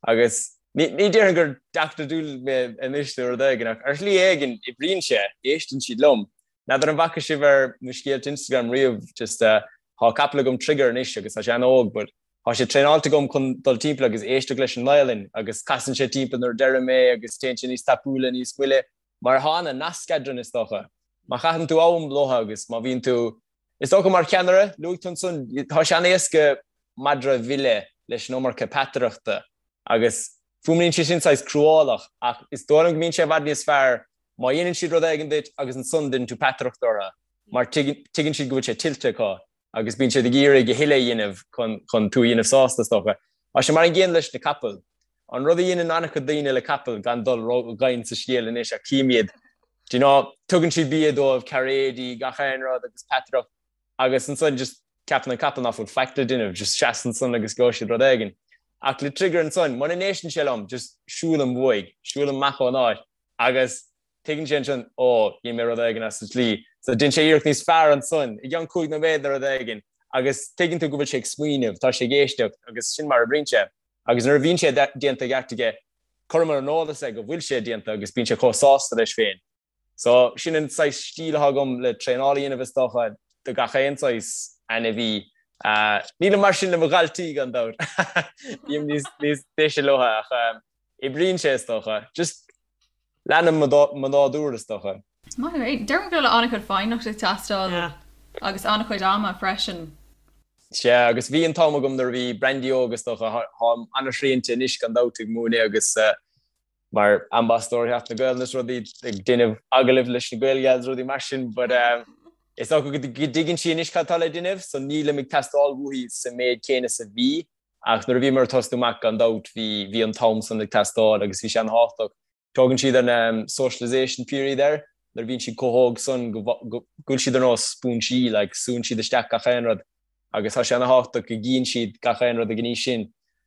agus ní, ní déarfainn gur deachtóir dúil mé anois nó rud éigin ach ar shlí éigin oibríonn sé, éisteann siad liom. N'fheadar an bhfaca sibh ar mo scéalta Instagram riamh, just uh, tá capall agam Trigger anois agus tá sé an-óg but tá sé traenáilte agam chun dul timpeall agus éisteacht leis an nGaelainn agus casann sé timpeall nuair a deirim é agus téann sé níos tapúla, níos moille. Mar tá an-nasc eadrainn is dócha. Má chaitheann tú am leo agus má bhíonn tú, is dócha mar cheannaire, luaigh tú ansan, tá sé an-éasca madra a mhilleadh leis an iomarca peataireachta agus fuaimníonn sé sin saghas cruálach ach is dóigh liom go mbíonn sé i bhfad níos fearr má dhéanann siad rud éigin duit agus ansan déanann tú peataireacht orthu mar tuigeann siad go bhfuil sé tuillte acu. agus bíonn siad ag iarraidh a thuilleadh a dhéanamh chun tú a dhéanamh sásta, is dócha. Tá sé mar an gcéanna leis na capaill. An rud a dhéanann an-chuid daoine le capaill, gan dul ró-dhomhain sa scéal anois, ach cím iad, do you know, tugann siad bia dóibh, cairéidí, gach aon rud agus peataireacht agus ansan just ceapann an capall ná fuil faic le déanamh, just seas ansan agus gheobhaidh siad rud éigin. Ach le Trigger ansan, muna n-éisteann sé liom, just siúlaim uaidh, siúlaim amach ón áit agus Tuigeann sé ansin, ó, dhein mé rud éigin as an tslí. So déanann sé iarracht níos fearr ansan, i gceann 5 nóiméad nó rud éigin, agus tuigeann tú go bhfuil sé ag smaoineamh, tá sé ag éisteacht, agus sin mar a oibríonn sé. Agus nuair a bhíonn sé déanta i gceart aige, cuirim ar an eolas é go bhfuil sé déanta agus bíonn sé chomh sásta leis féin. So sin an saghas stíl atá agam le traenáil a dhéanamh is dócha, do gach aon saghas ainmhí. Nílim mar sin le mo dhaltaí gan dabht. Bím níos deise leo ach oibríonn sé is dócha. Just Leanaim mo nádúr, is dócha. Maith thú. Deirim go bhfuil an-chuid foighneachta ag teastáil agus an-chuid ama freisin. Sea, agus bhí an t-am agam nuair a bhí Brandy óg, is dócha. Táim an-srianta anois gan dabht ag múineadh agus mar ambasadóir Sheachtain na Gaelainne is rudaí, ag déanamh agallaimh leis na Gael Gals rudaí mar sin, but is dócha go dtuigeann sí anois cad atá le déanamh, so nílim ag teastáil uaithi sa méid céanna is a bhí. Ach nuair a bhíomar ag tosnú amach, gan dabht, bhí, bhí an t-am san ag teastáil agus bhí sé an-thábhachtach. Tugann siad an socialisation period air, nuair a bhíonn siad chomh hóg san go, go bhfuil siad ar nós spúinsí, like, súnn siad isteach gach aon rud agus tá sé an-thábhachtach go gcíonn siad gach aon rud ag an aois sin.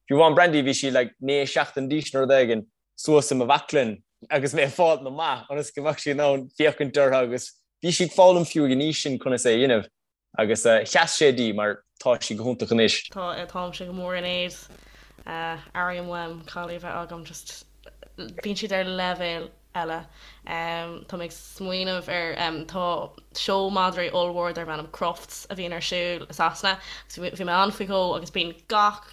Fiú amháin Brandy, bhí sí like 9 seachtain d'aois nó rud éigin, suas i mo bhaclainn agus mé ag fáilt na mba ionas go mbeadh sí in ann féachaint orthu agus. Bhí sí ag foghlaim fiú ag an aois sin conas é a dhéanamh agus sheas sé di mar tá sí go hiontach anois. Tá, táimse go mór in éad. Airím uaim collie a bheith agam, just bíonn siad ar leibhéal eile. Tá mé ag smaoineamh ar, tá seó madraí ollmhór darb ainm Crufts a bhíonn ar siúl i Sasana agus bhí mé ann faoi dhó agus bíonn gach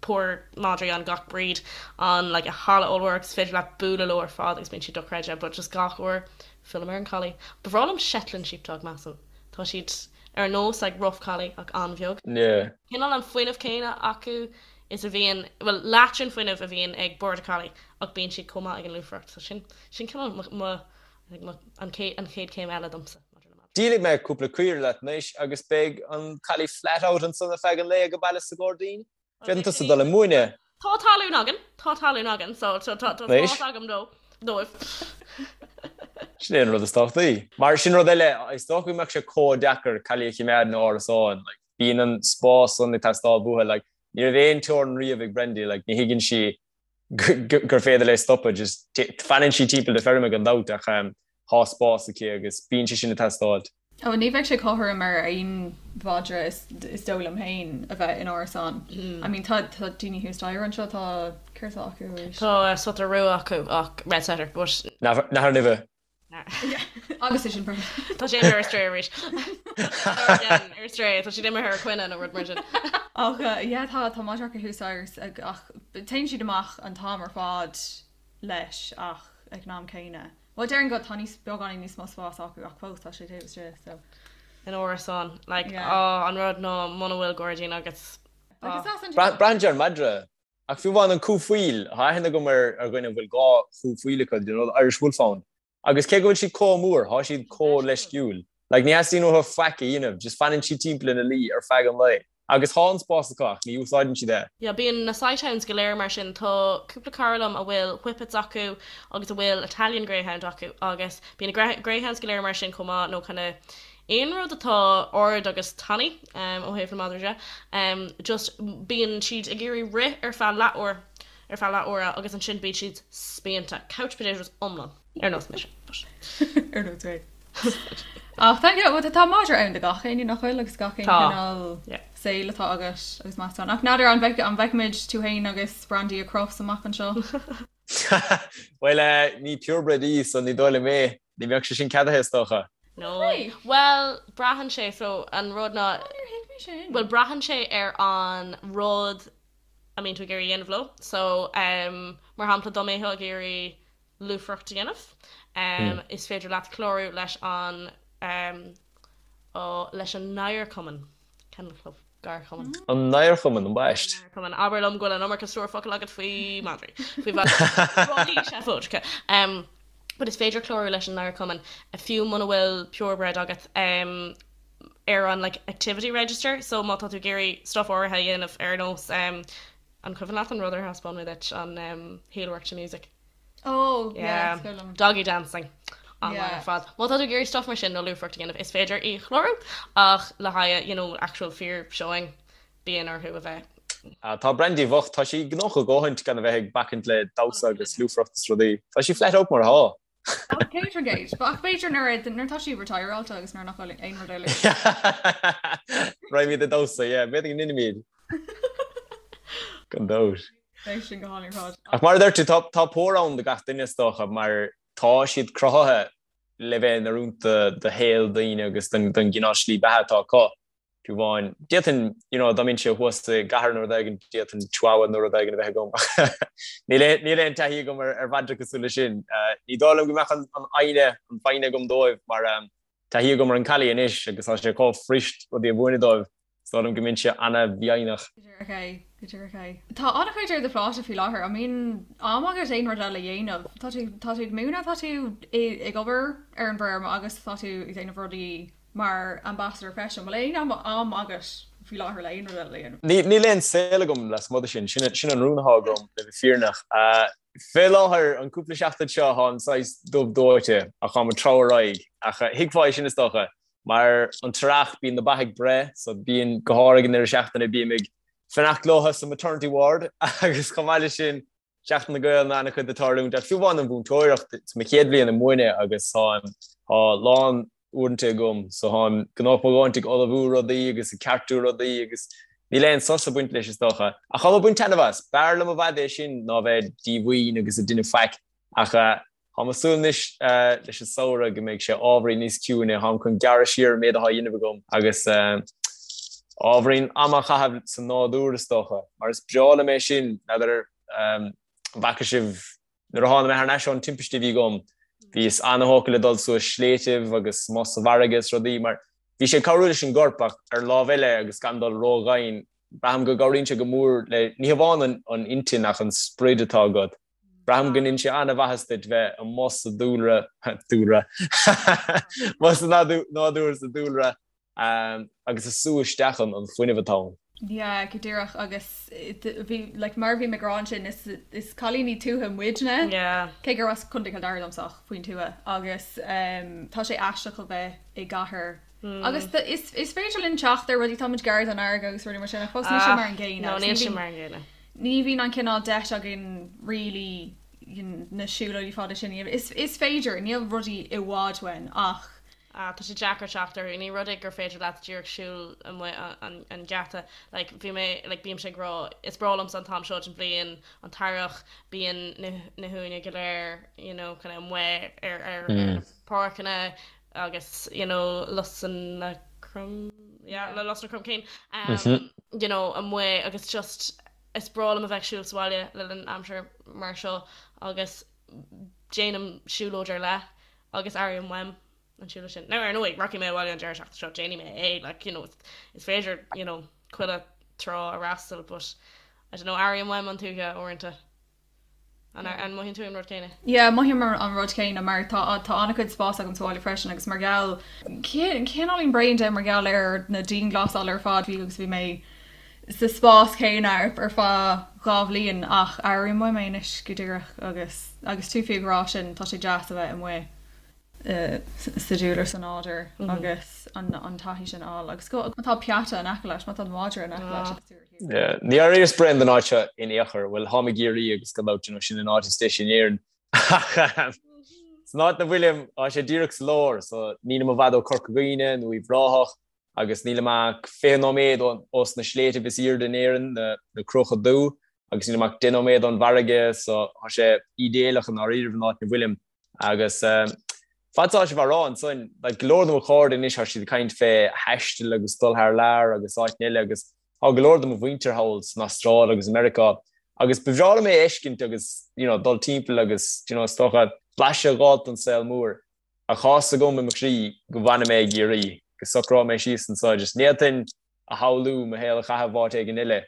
pór madraí ann, gach breed ann like i halla ollmhór agus is féidir leat bualadh leo ar fad agus bíonn siad dochreidte but just gach uair fillim ar an collie. Ba bhreá liom Shetland sheepdog measaim. Tá siad ar nós like rough collie ach an-bheag. Yeah. Cineál an fuinneamh céanna acu is a bhíonn, bhuel leath den fuinneamh a bhíonn ag border collie ach bíonn siad chomh maith ag an lúfaireacht so sin, sin cineál mo, mo, I think mo, an chéad, an chéad chéim eile domsa maidir le madraí. Díolfaidh mé cúpla caora leat anois agus beidh an collie flat out ansan ar feadh an lae age baile sa ghairdín. Féadann tusa dul ag múineadh. Tá talún againn, tá talún againn, so tá spás agam dó, dóibh. Sin é an rud is tábhachtaí. Mar sin rud eile, is dócha go mbeadh sé chomh deacair collie a choimeád in árasán, like, bíonn an spás san ag teastáil uathu, like, ní raibh aon teorainn riamh ag Brendy, like, ní thuigeann sí gur féidir léi stopadh, just fanann sí timpeall na feirme gan dabht ach tá spás aici agus bíonn sé sin ag teastáilt. Ó, ní bheadh sé cothrom ar aon mhadra is dóigh liom féin a bheith in árasán. I mean tá tá daoine thuas staighre anseo, tá, céard atá acu arís? Tá setter rua acu ach, red setter, but. Nathair nimhe. Agus é sin perfect. Tá sé imithe ar strae arís. Ar strae, tá siad imithe ar coinne nó rud mar sin. Ach yeah, tá tá madra acu thuas staighre ach téann siad amach an t-am ar fad leis ach ag an am céanna. Bhuel déarfainn go tá níos beagáinín níos mó spás acu ach fós tá sé taobh istigh so. In árasán, like, Yeah. oh, an rud ná muna bhfuil gairdín agat. Like, is as an Braitheann sé ar an madra. Ach fiú amháin an cú faoil, tá aithne agam ar ar dhuine a bhfuil 2 chú faoil acu, you know, the Irish Wolfhound. Agus cé go bhfuil siad chomh mór, tá siad chomh leisciúil. Like, ní theastaíonn uathu faic a dhéanamh, just fanann siad timpeall ina luí ar feadh an lae. Agus tá an spás acu ach ní úsáideann siad é. Yeah, bíonn na sighthounds go léir mar sin. Tá cúpla cara liom a bhfuil whippets acu agus a bhfuil Italian Greyhound acu agus bíonn na greyhounds go léir mar sin chomh maith nó kind of aon rud atá ard agus tanaí ó thaobh na madraí de, just bíonn siad ag iarraidh rith ar feadh leathuair, ar feadh leath uaire agus ansin bíonn siad spíonta, couch potatoes iomlán, ar nós mise, but. Ar nós mé. Ach thank you, well tá madra ann do gach éinne nach bhfuil agus gach aon cineál saoil atá agat agus meascán. Ach n'fheadar an bhfeicfimid tú féin agus Brandy ag Crufts amach anseo? Bhuel, ní purebred í, so ní dóigh liom é. Ní bheadh sé sin ceadaithe, is dócha. No. Bhuel, braitheann sé, so an rud ná, Níor thuig mé sin. bhuel, braitheann sé ar an rud a mbíonn tú ag iarraidh a dhéanamh leo. So, mar shampla, dá mbeifeá ag iarraidh lúfaireacht a dhéanamh, is féidir leat clárú leis an, leis an nGadharchumann, Kennel Club. Gadharchumann. An nGadharchumann, ambaist. An nGadharchumann. Abair liom go bhfuil an iomarca stór focal agat faoi madraí. Faoi mhadraí seafóideacha. But is féidir clárú leis an nGadharchumann fiú muna bhfuil purebred agat ar an like activity register so má tá tú ag iarraidh stuff áirithe a dhéanamh ar nós an cuimhin leat an rud ar thaispeáin mé duit an heelwork to music? Oh, yeah, is cuimhin liom. Doggy dancing. An-mhaith ar fad. Má tá tú ag iarraidh stuff mar sin nó lúfaireacht a dhéanamh, is féidir í a chlárú ach le haghaidh, you know, actual fíor showing, bíonn orthu a bheith. Tá Brandy bhocht, tá sí gnóthach a dhóthaint gan a bheith ag bacaint le damhsa agus lúfaireacht is rudaí. Tá sí flat out mar atá. 100%. Ach b'fhéidir nuair nuair atá sí retireáilte agus nuair nach bhfuil aon rud eile. Raghaimid ag damhsa, yeah, b'fhéidir go ndéanfaimid. Gan dabht. Beidh sin go hálainn ar fad. Ach mar a deir tú, tá tá pór ann do gach duine is dócha, mar tá siad cruthaithe le bheith in oiriúint do shaol daoine agus don don gcineál slí beatha atá acu. Fiú amháin, d'fhéadfainn, you know, dá mbeinnse thuas i gcathair nó rud éigin, d'fhéadfainn chihuahua nó rud éigin a bheith agam ach níl aon níl aon taithí agam ar ar mhadra cosúil leis sin. Ní dóigh liom go mbeadh an an fhoighne an foighne agam dóibh mar taithí agam ar an collie anois agus tá sé chomh fuirist rudaí a mhúineadh dóibh. Is dóigh liom go mbeinnse an-mhífhoighneach. Go díreach é, go díreach é. Tá an-chuid ar do phláta faoi láthair. An mbíonn am agat aon rud eile a dhéanamh? Tá tú, tá tú ag múineadh, tá tú ag obair ar an bhfeirm agus tá tú ag déanamh rudaí mar ambassador freisin. An bhfuil aon am agat faoi láthair le aon rud eile a dhéanamh? Níl aon saol agam lasmuigh de sin. Sin an rún atá agam, le bheith fírinneach. Fé láthair, an cúpla seachtain seo, táim saghas dubh dóite ach táim ag treabhadh ar aghaidh. Ach thuigfeá é sin, is dócha. Mar an t-earrach bíonn na ba ag breith so bíonn, go háirithe ag an deireadh seachtaine, bím ag fanacht leo sa maternity ward agus chomh maith leis sin Seachtain na Gael an-chuid ag tarlúint ach fiú amháin an mhúinteoireacht, is mo chéad bhliain ag múineadh agus tá tá lán. uaireanta agam so táim gnóthach mo dhóthaint ag ullmhú rudaí agus ag ceartú rudaí agus níl aon sos ag baint leis is dócha. Ach táim ag baint taitneamh as. B'fhearr liom i bhfad é sin ná bheith díomhaoin agus ag déanamh faic ach táim ag súil anois leis an samhradh go mbeidh sé ábhairín níos ciúine, táim chun gearradh siar an méid atá á dhéanamh agam agus ábhairín ama a chaitheamh sa nádúr is dócha mar is breá liom é sin, n'fheadar an bhfaca sibh Nuair a tháinig mé thar n-ais ón timpiste a bhí agam, bhíos ana-thógtha le dul suas sléibhtibh agus amuigh sa bhfarraige is rudaí mar bhí sé ag cabhrú leis an gcorp ach ar an lámh eile agus gan dul ró-dhoimhin, braithim go gcabhraíonn sé go mór le, ní hamháin an intinn ach an sprid atá agat. Braithim go ndéanann sé ana-mhaitheas duit bheith amuigh sa dúlra, dúlra, amuigh sa nádúr sa dúlra agus ag sú isteach an fuinneamh atá ann. Yeah, go díreach agus bhí like mar a bhí mé ag rá ansin is is cailíní tuaithe muidne. Yeah. Cé gur as Contae Chill Dara domsa ach faoin tuath agus um, tá sé aisteach a bheith i gcathair. Mm. Agus is, is féidir linn teacht ar rudaí tá muid gar don fharraige agus rudaí mar sin ach fós níl sé mar an gcéanna. No, níl sé mar an gcéanna. Ní bhíonn an cineál deis againn really na siúlóidí fada sin. Is, is féidir, níl rudaí i bhfad uainn ach Ah, tá sé deacair teacht orthu. Ní rud é gur féidir leat díreach siúl amuigh an geata. Like, bhí mé, like, bímse ag rá, is breá liomsa an t-am seo den bhliain, an t-earrach, bíonn na, na huain go léir, you know, kind of amuigh ar, ar, ar na páirceanna agus, you know, lusanna crom, yeah, le lusanna cromcinn, um, you know, amuigh agus just, is breá liom a bheith ag siúl sa bhaile le linn aimsir mar seo agus déanaim siúlóid ar leith agus airím uaim an siúlóid sin. Now ar ndóigh, rachaidh mé abhaile an deireadh seachtaine seo, déanfaidh mé é, like, you know, is féidir, you know, chuile trá a fhreastal, but I don't know, airím uaim an tuaithe uaireanta. An, an mothaíonn tú an rud céanna? Yeah, mothaím an rud céanna mar tá tá an-chuid spás agam sa bhaile freisin agus mar gheall cineáilín bréan de mar gheall ar na dianghlasáil ar fad bhí agus bhí mé sa spás céanna ar feadh 2 bhliain ach airím uaim é anois go díreach agus agus tú fiú ag rá sin tá sé deas a bheith amuigh sa dúlra sa nádúr agus an an taithí sin a fháil agus go má tá peata in aice leat má tá madra in aice leat agus tú ar thír. Ní airíos bréan den áit seo in aon chor, bhuel táim i gCiarraí agus gan dabht you know sin an áit is deise in Éirinn ach san áit 'na bhfuilim tá sé díreach sa lár so nílim i bhfad ó Corca Dhuibhne nó Uíbh Ráthach agus nílim ach 20 nóiméad ós na sléibhtibh is aoirde in Éirinn, na Cruacha Dubha, agus nílim ach 10 nóiméad ón bhfarraige, so tá sé ídéalach i ndáiríribh an áit 'na bhfuilim. Agus fad 's atá sibh á rá ansan, like, go leor de mo chairde anois tá siad ag caint fé thaisteal agus dul thar lear agus áiteanna eile agus tá go leor de mo mhuintir thall san Astráil agus i Meiriceá agus ba bhreá liom é a fheiscint agus, you know, dul timpeall agus, you know, is dócha blaiseadh a dh'fháilt den saol mór. Ach tá 'fhios agam i mo chroí go bhfanfaidh mé i gCiarraí, go socróidh mé síos anseo, just ní fhéadfainn a shamhlú mo shaol a chaitheamh áit éigin eile.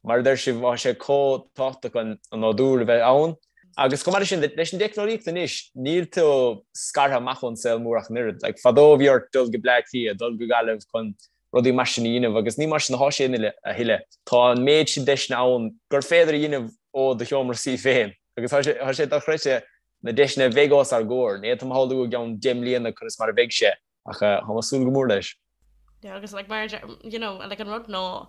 Mar a deir sibh, tá sé chomh tábhachtach an nádúr a bheith ann. Agus chomh maith leis sin, leis an dteicneolaíocht anois, níl tú scartha amach ón saol mór ach an oiread. Like, fadó bhí ort dul go Bleá Cliath, dul go Gaillimh chun rudaí mar sin a dhéanamh agus ní mar sin atá sé a thuilleadh. Tá an méid sin deiseanna ann gur féidir a dhéanamh ó do sheomra suí féin agus tá sé dochreidte na deiseanna a bheidh os ár gcomhair. Ní fhéadfainn a shamhlú i gceann 10 mbliana conas mar a bheidh sé, ach táim ag súil go mór leis. Yeah, agus like mar you know, like an rud ná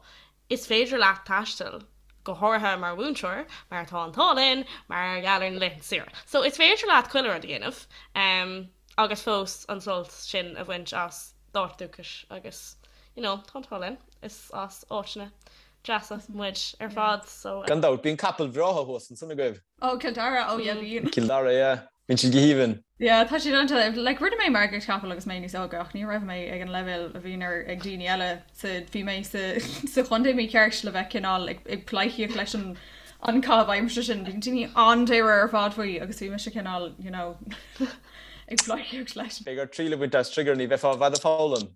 is féidir leat taisteal, go háirithe mar mhúinteoir, mar tá an t-ádh linn, mar gheall ar na laethanta saoire. So is féidir leat chuile rud a dhéanamh um, agus fós an sult sin a bhaint as d'áit dúchais agus you know, tá an t-ádh linn, is as áiteanna deasa muid ar fad so. Gan dabht, bíonn capaill bhreátha thuas ansan agaibh. Oh, Cill Dara, oh yeah bíonn. Cill Dara, yeah. Bíonn siad go haoibhinn. Yeah, tá siad iontach, like rinne mé margaíocht capall agus mé níos óige ach ní raibh mé ag an leibhéal a bhíonn ar ag daoine eile sa bhí mé sa sa chontae mícheart le bheith cineál ag ag pleidhcíocht leis an an caitheamh aimsire sin. Bíonn daoine an-dáiríre ar fad faoi agus bhí mise cineál, you know, ag pleidhcíocht leis. Beidh ort triail a bhaint as Trigger, ní bheifeá i bhfad ag foghlaim.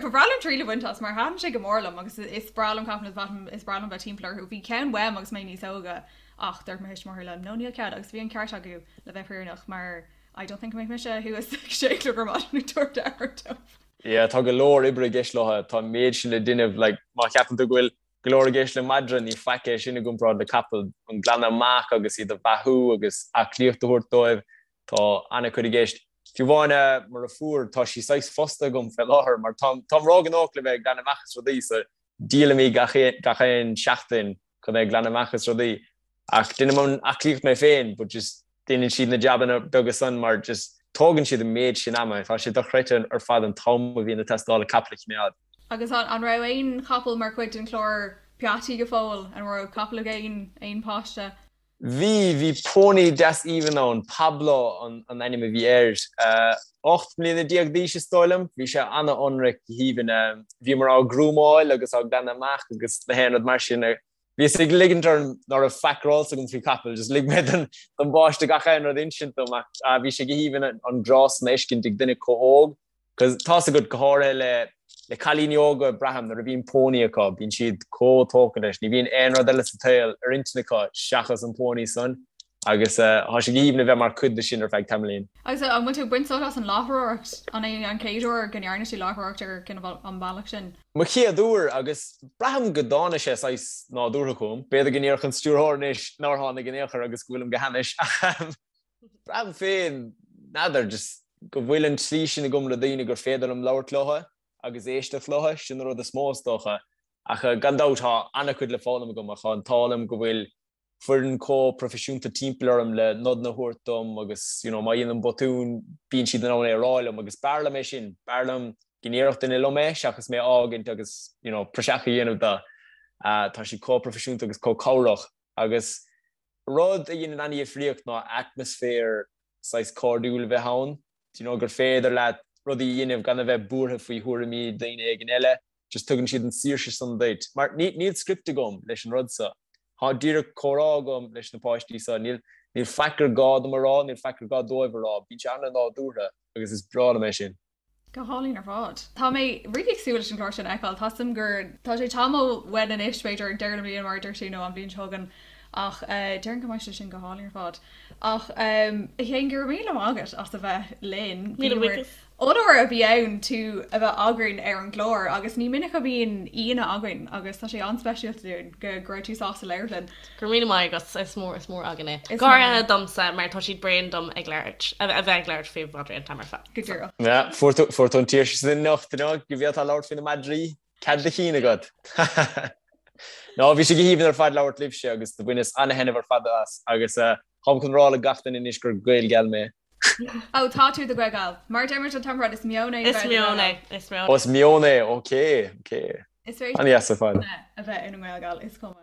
Ba bhreá liom triail a bhaint as mar thaitin sé go mór liom agus is breá liom capaill is breá liom bheith timpeall orthu. Bhí ceann uaim agus mé níos óige ach dúirt mo thuismitheoirí liom no níl cead agus bhí an ceart acu le bheith fírinneach mar I don't think go mbeadh mise thuas ag sé a chlog ar maidin ag tabhairt aire dóibh. Yeah, tá go leor oibre i gceist leo, tá an méid sin le déanamh, like má cheapann tú go bhfuil go leor i gceist le madra, ní faic é sin i gcomparáid le capall, an glanadh amach agus iad a bheathú agus aclaíocht a thabhairt dóibh, tá an-chuid i gceist. Fiú amháin mo dheirfiúr, tá sí saghas fostaithe agam fé láthair mar táim táim róghnóthach le bheith ag glanadh amach is rudaí so díolaim í gach gach aon seachtain chun bheith ag glanadh amach is rudaí. Ach déanaim an aclaíocht mé féin but just déanann siad na jabanna beaga san mar just. Tógann siad an méid sin ama, tá sé dochreidte ar fad an t-am a bhíonn ag teastáil le capall a choimeád. Agus an raibh aon chapall mar chuid den chlár Peataí go fóill? An raibh capall ag aon aon páiste? Bhí, bhí pónaí deas aoibhinn ann, Pablo an ainm a bhí air. 18 mbliana d'aois is dóigh liom. Bhí sé an-ionraic, go haoibhinn. Bhíomar á ghrúmáil agus á ghlanadh amach agus na haon rud mar sin. Bhíos ag ligint orm ná raibh faic ar eolas agam faoi chapaill, just lig mé don bpáiste gach aon rud a insint dom ach bhí sé go haoibhinn an grá san a fheiscint ag duine chomh hóg. Cos tá's agat, go háirithe le le cailíní óga, braithim, nuair a bhíonn pónaí acu, bíonn siad chomh tógtha leis, ní bhíonn aon rud eile sa tsaol ar intinn acu seachas an pónaí san agus tá sé go haoibhinn a bheith mar chuid de sin ar feadh tamaillín. Agus an bhfuil tú ag baint sult as an láithreoireacht? An é an chéad uair go ndearna tú láithreoireacht ar cineál an bealach sin? Mo chéad uair agus braithim go dtáinig sé saghas nádúrtha chugam. B'fhéidir go ndéarfadh an stiúrthóir anois nár tháinig in aon chor agus go bhfuilim go hainnis ach braithim féin, n'fheadar, just go bhfuil an tslí sin agam le daoine gur féidir liom labhairt leo agus éisteacht leo, sin an rud is mó is dócha. Ach gan dabht tá an-chuid le foghlaim agam ach tá an t-ádh liom go bhfuil foireann chomh proifisiúnta timpeall orm le nodanna a thabhairt dom agus you know má dhéanaim botún bíonn siad in ann é a rá liom agus b'fhearr liom é sin, b'fhearr liom go ndéarfadh duine liom é seachas mé a fhágaint agus you know praiseach a dhéanamh de. Tá siad chomh proifisiúnta agus chomh cabhrach agus rud a dhéanann an-dhifríocht ná atmaisféar saghas cairdiúil a bheith ann, do you know gur féidir leat rudaí a dhéanamh gan a bheith buartha faoi thuairimí daoine éigin eile. just tugann siad an saoirse san duit, mar níl script agam leis an rud so. Tá díreach comhrá agam leis na páistí so, níl níl faic ar gá dom a rá, níl faic ar gá dóibh a rá, bíonn sé an-nádúrtha agus is breá liom é sin. Go hálainn ar fad. Tá mé really ag súil leis an gclár sin a fheiceáil. Tá 'fhios a'm gur tá sé tamall uainn anois, b'fhéidir ag deireadh na bliana mar a dúirt tú nó an bhliain seo chugainn ach déarfainn go mbeidh sé sin go hálainn ar fad. Ach a Shéain, go raibh míle maith agat as a bheith linn. Míle buíochas. Onóir a bhí ann tú a bheith againn ar an gclár agus ní minic a bhíonn aíonna againn agus tá sé an-speisialta dúinn go go raibh tú sásta labhairt linn. Go raibh míle maith agat, is mór is mór againn é. Go háirithe domsa mar tá siad bréan dom ag labhairt, a bheith ag labhairt faoi mhadraí an t-am ar fad. Go díreach. Yeah, fuair tú fuair tú an tsaoirse sin anocht, you know, go bhféadfá labhairt faoi na madraí, cead do chinn agat. No, bhí sé go haoibhinn ar fad labhairt libhse agus do bhaineas ana-thaitneamh ar fad as agus táim chun rá le gach duine anois gur Gaelgal mé. Ó, tá tú i do Ghaelgal. Mar a deir muid an t-am ar fad, is meon é Is bheith i do meon Ghaelgal. é, is meon Ó, is meon é, ok, ok. Is féidir An-dheas ar fad. a bheith ina nGaelgal, is cuma.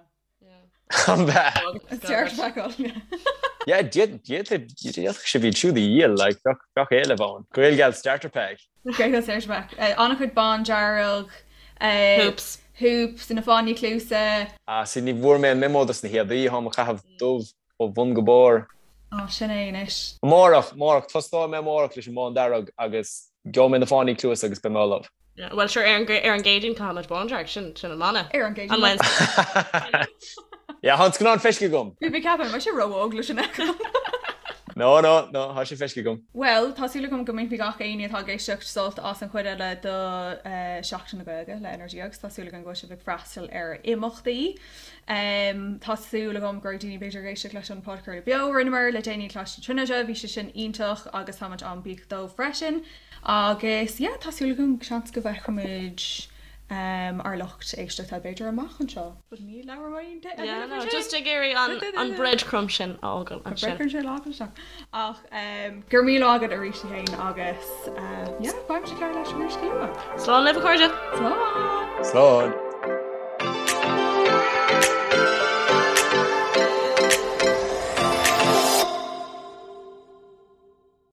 An bea? Is dear feiceáil, yeah. Yeah, d'fhéadfadh sibh iad siúd a dhíol, like, bheadh, bheadh éileamh ann. Gaelgal starter pack. Gaelgal starter pack. An-chuid bándearg. Hoops. Hoops, na fáinní cluasa. Ah, see, ní bhfuair mé an memo dos na héadaí, táim ag caitheamh dubh. Ó bhun go barr. Á, sin é anois. Amárach, amárach, tosnóidh mé amárach leis an mbándearg agus gheobhaidh mé na fáinní cluasa agus beidh mé ullamh. Bhuel, sure, ar an ar an gCéadaoin caithfimid bándearg, sin, sin an mana. Ar an gCéadaoin. An Wednesday. Yeah, tá an scannán feiscithe agam. Bhí mé ag ceapadh, an mbeidh sé ró-óg leis sin a fheiceáil? No, no, no, tá sé feiscithe agam. Bhuel, tá súil agam go mbainfidh gach éinne atá ag éisteacht sult as an chuid eile de Seachtain na Gaeilge le NRG agus tá súil agam go bhfuil sibh ag freastal ar imeachtaí. Tá súil agam go raibh daoine b'fhéidir ag éisteacht leis an podchraoladh beo a rinneamar le déanaí i Coláiste na Tríonóide, bhí sé sin iontach agus táimid an-bhuíoch dóibh freisin. Agus yeah, tá súil agam seans go bhfeicfimid ár lucht éisteachta b'fhéidir amach anseo. But ní labhróidh aon Yeah, no, just ag iarraidh an an breadcrumb sin a fhágáil ansin. An breadcrumb sin a fhágáil isteach. Ach go raibh míle maith agat arís a Shéain agus yeah, beimid ag labhairt leat arís go luath. Slán libh a chairde! Slán! Slán!